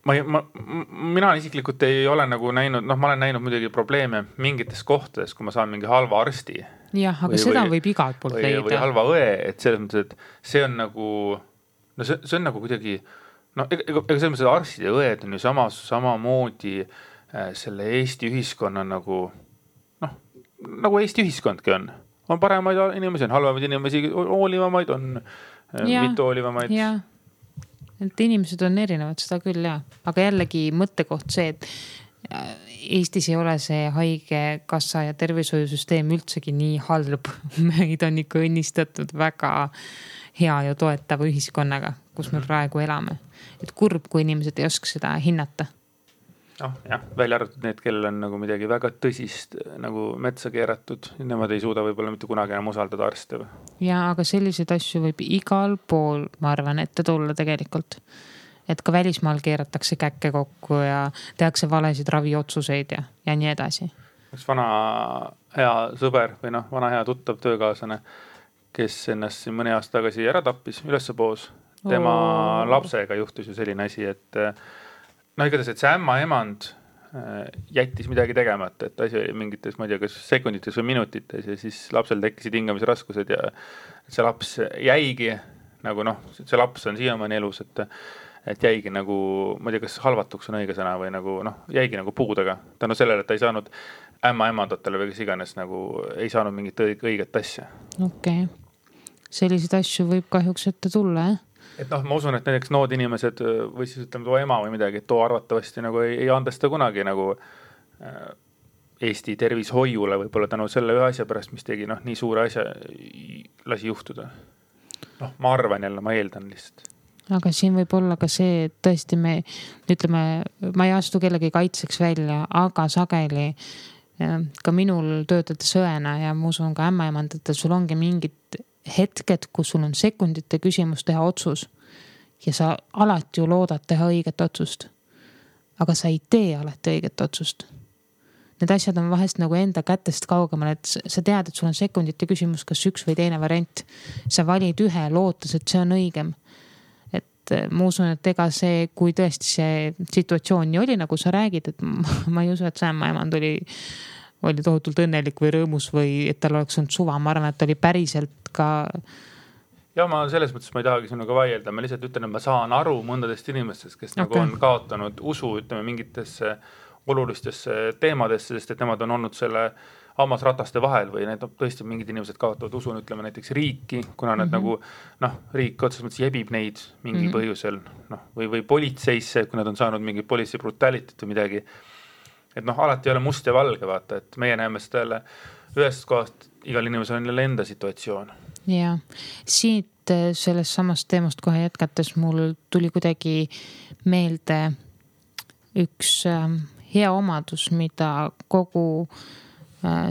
mina isiklikult ei ole nagu näinud, ma olen näinud muidugi probleeme mingites kohtades, kui ma saan mingi halva arsti. Jah, aga seda võib igalt poolt leida. Või halva õe, et selles mõttes, et see on nagu, see on nagu kuidagi, ega selles mõttes, et arstid ja õed on ju samamoodi selle Eesti ühiskonna nagu Eesti ühiskondki on paremaid inimesi, on halvemaid inimesi, hoolivamaid, on mitte hoolivamaid. Jah, et inimesed on erinevad, seda küll jah. Aga jällegi mõttekoht see, et Eestis ei ole see haigekassa ja tervishoiusüsteem üldsegi nii halb. Meid on ikka õnnistatud väga hea ja toetava ühiskonnaga, kus me praegu elame. Et kurb, kui inimesed ei oska seda hinnata. Jah, välja arvatud need, kellel on nagu midagi väga tõsist nagu metsa keeratud. Nemad ei suuda võib-olla mitte kunagi enam usaldada arste. Ja, aga selliseid asju võib igal pool, ma arvan, ette tulla tegelikult. Et ka välismaal keeratakse käkke kokku ja tehakse valesid raviotsuseid ja nii edasi. Üks vana hea sõber või vana hea tuttav töökaaslane, kes ennast siin mõne aasta tagasi ära tappis ülespoos. Tema lapsega juhtus ju selline asi, et igatahes, et see ämmaemand jättis midagi tegemata, et asi oli mingites, ma ei tea, kas sekundites või minutites ja siis lapsel tekkisid hingamisraskused ja see laps jäigi nagu see laps on siiamaani elus, et jäigi nagu, ma ei tea, kas halvatuks on õige sõna või nagu jäigi nagu puudega. Tänu sellele, et ta ei saanud ämmaemandatele või kes iganes nagu ei saanud mingit õiget asja. Okei. Selliseid asju võib kahjuks ette tulla, Et ma usun, et näiteks nood inimesed või siis ütleme too ema või midagi, et too arvatavasti nagu ei andesta kunagi nagu Eesti tervishoiule võib-olla tänu selle ühe asja pärast, mis tegi nii suure asja lasi juhtuda. Ma arvan jälle, ma eeldan lihtsalt. Aga siin võib olla ka see, et tõesti me ütleme, ma ei astu kellegi kaitseks välja, aga sageli ka minul töötades õena ja ma usun ka ämmaemandatel, sul ongi mingid hetked, kus sul on sekundite küsimus teha otsus ja sa alati ju loodad teha õiget otsust, aga sa ei tee alati õiget otsust. Need asjad on vahest nagu enda kätest kaugemal, et sa tead, et sul on sekundite küsimus, kas üks või teine variant. Sa valid ühe, lootes, et see on õigem. Et ma usun, et ega see, kui tõesti see situatsioon nii oli, nagu sa räägid, et ma ei usu, et see ämmaemand oli tohutult õnnelik või rõõmus või et tal oleks olnud suva. Ma arvan, et oli päriselt ka. Ja ma selles mõttes ma ei tahagi sinuga vaielda. Ma lihtsalt ütlen, et ma saan aru mõndadest inimestest, kes nagu on kaotanud usu, ütleme, mingitesse olulistesse teemadesse, sest et nemad on olnud selle hammasrataste vahel või need tõesti mingid inimesed kaotavad usu, ütleme näiteks riiki, kuna nad nagu, riik otseses mõttes jebib neid mingi põhjusel, või politseisse, kui nad on saanud mingi politsei brutalitit või midagi. Et alati ei ole must ja valge, vaata, et meie näeme seda jälle ühest kohast, igal inimesel on jälle enda situatsioon. Ja, siit sellest samast teemast kohe jätkates mul tuli kuidagi meelde üks hea omadus, mida kogu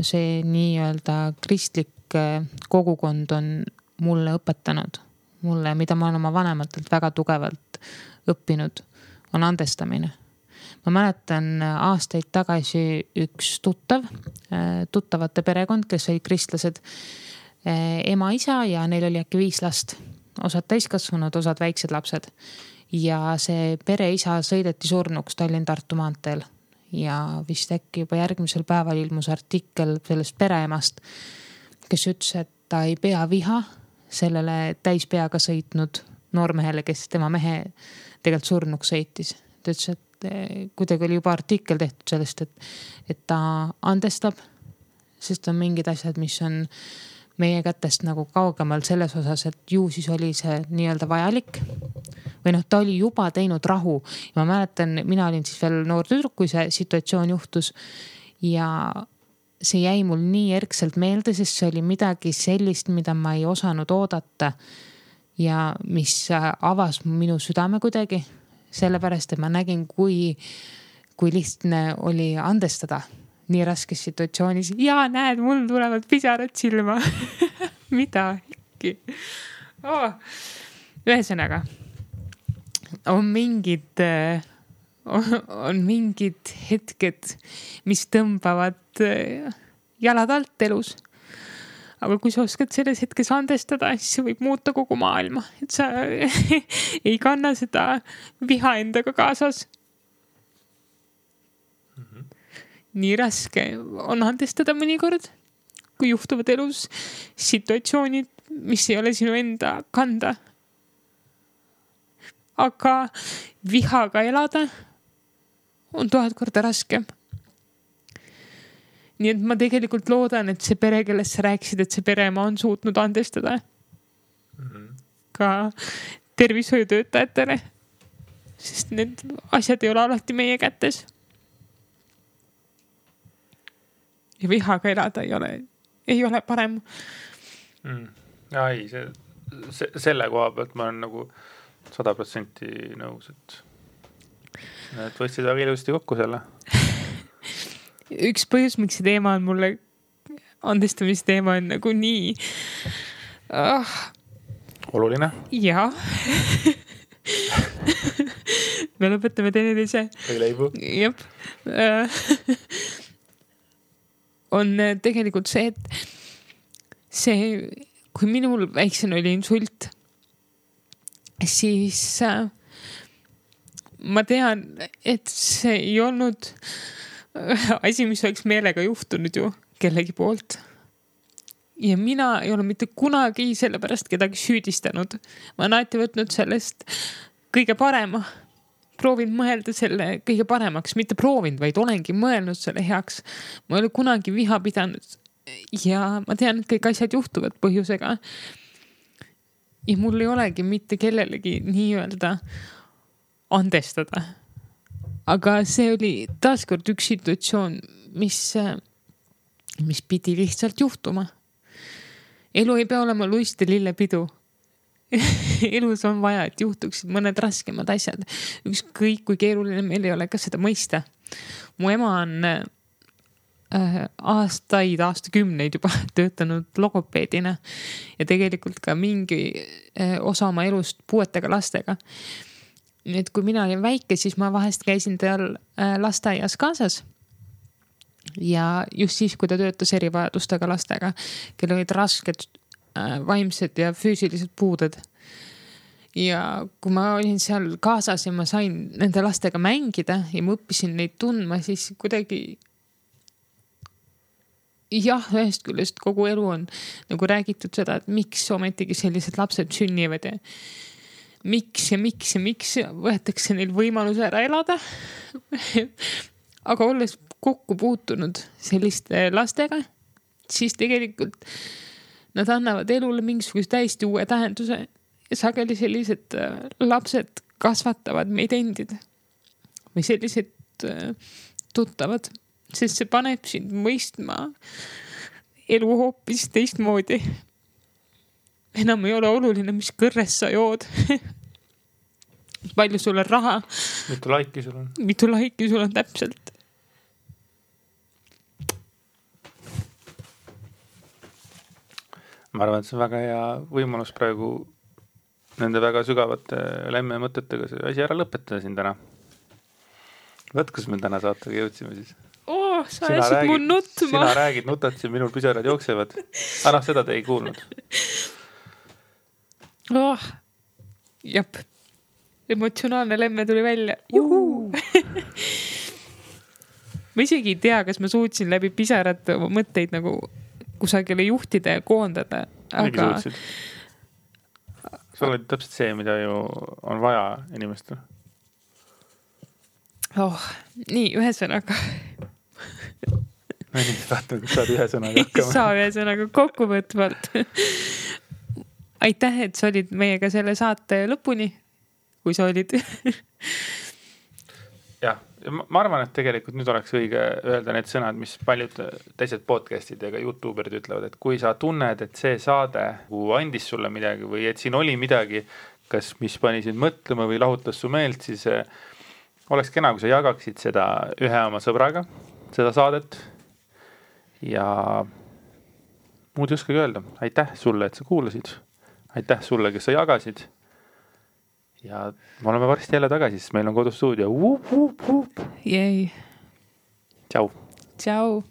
see nii-öelda kristlik kogukond on mulle õpetanud. Mulle, mida ma olen oma vanematelt väga tugevalt õppinud, on andestamine. Ma mäletan aastaid tagasi üks tuttavate perekond, kes olid kristlased, ema, isa ja neil oli äkki 5 last. Osad täiskasvanud, osad väiksed lapsed. Ja see pere isa sõideti surnuks Tallinn-Tartu maanteel. Ja vist äkki juba järgmisel päeval ilmus artikkel sellest pereemast, kes ütles, et ta ei pea viha sellele täispeaga sõitnud noormehele, kes tema mehe tegelikult surnuks sõitis. Ta ütles, et kuidagi oli juba artikkel tehtud sellest, et ta andestab, sest on mingid asjad, mis on meie kätest nagu kaugemal selles osas, et ju siis oli see nii-öelda vajalik. Või noh, ta oli juba teinud rahu. Ja ma mäletan, mina olin siis veel noor tüdruk, kui see situatsioon juhtus. Ja see jäi mul nii erkselt meelde, sest see oli midagi sellist, mida ma ei osanud oodata. Ja mis avas minu südame kuidagi. Sellepärast, et ma nägin, kui lihtne oli andestada nii raskes situatsioonis. Ja näed, mul tulevad pisarad silma. Mida äkki? Ühesõnaga, on mingid hetked, mis tõmbavad jalad alt elus. Aga kui sa oskad selles hetkes andestada, siis see võib muuta kogu maailma. Et sa ei kanna seda viha endaga kaasas. Nii raske on andestada mõnikord, kui juhtuvad elus situatsioonid, mis ei ole sinu enda kanda. Aga vihaga elada on 1000 korda raske. Nii et ma tegelikult loodan, et see pere, kellest sa rääkisid, et see pereema on suutnud andestada ka tervishoiutöötajatele, sest need asjad ei ole alati meie kätes. Ja vihaga elada ei ole parem. Ei, selle koha pealt ma olen nagu 100% nõus, et võtsid väga ilusti kokku selle. Üks põhjus, miks see teema on mulle, andestamisteema on nagu nii oluline. Jaa. Me lõpetame teineteise. Ei leibu. Jep. On tegelikult see, et kui minul väiksena oli insult, siis ma tean, et see ei olnud asi, mis oleks meelega juhtunud ju kellegi poolt. Ja mina ei ole mitte kunagi sellepärast kedagi süüdistanud. Ma olen alati võtnud sellest kõige parema. Proovin mõelda selle kõige paremaks, mitte proovinud, vaid olengi mõelnud selle heaks. Ma ei ole kunagi viha pidanud ja ma tean, et kõik asjad juhtuvad põhjusega. Ja mul ei olegi mitte kellelegi nii-öelda andestada. Aga see oli taaskord üks situatsioon, mis pidi lihtsalt juhtuma. Elu ei pea olema luiste lillepidu. Elus on vaja, et juhtuksid mõned raskemad asjad. Ükskõik kui keeruline meil ei ole ka seda mõista. Mu ema on aastakümneid juba töötanud logopeedina ja tegelikult ka mingi osa oma elust puuetega lastega. Nii et kui mina olin väike, siis ma vahest käisin tal lasteaias kaasas. Ja just siis, kui ta töötas erivajadustega lastega, kel olid rasked vaimsed ja füüsilised puuded. Ja kui ma olin seal kaasas ja ma sain nende lastega mängida ja ma õppisin neid tundma, siis kuidagi ühest küljest kogu elu on nagu räägitud seda, et miks ometigi sellised lapsed sünnivad ja miks võetakse neil võimaluse ära elada. Aga olles kokku puutunud selliste lastega, siis tegelikult nad annavad elule mingisuguse täiesti uue tähenduse ja sageli sellised lapsed kasvatavad meid endid või sellised tuttavad, sest see paneb sind mõistma elu hoopis teistmoodi. Enam ei ole oluline, mis kõrres sa jood. Palju sul on raha. Mitu laiki sul on täpselt. Ma arvan, et see on väga hea võimalus praegu nende väga sügavate lemme mõtetega see asi ära lõpetada siin täna. Võt, kus me täna saatega jõudsime siis? Sa ajasid mu nutma. Sina räägid, nutad siin, minul pisarad jooksevad. Seda te ei kuulnud. Jep. Emotsionaalne lemme tuli välja. Ma isegi ei tea, kas ma suutsin läbi pisarad mõtteid nagu kusagile juhtida ja koondada. sa oled täpselt see, mida ju on vaja inimestel. Nii, ühesõnaga. No nii, vaatame, kas saad ühe sõnaga hakkama. Saa ühe sõnaga kokkuvõtvalt. Aitäh, et sa olid meiega selle saate lõpuni, kui sa olid. Jah, ma arvan, et tegelikult nüüd oleks õige öelda need sõnad, mis paljud teised podcastid ja ka YouTuberid ütlevad, et kui sa tunned, et see saade andis sulle midagi või et siin oli midagi, kas mis pani sind mõtlema või lahutas su meelt, siis oleks kena, kui sa jagaksid seda ühe oma sõbraga, seda saadet ja muud ei oskagi öelda. Aitäh sulle, et sa kuulasid. Aitäh sulle, kes sa jagasid. Ja me oleme varsti jälle tagasi, sest meil on kodustuudio. Jäi. Tšau. Tšau.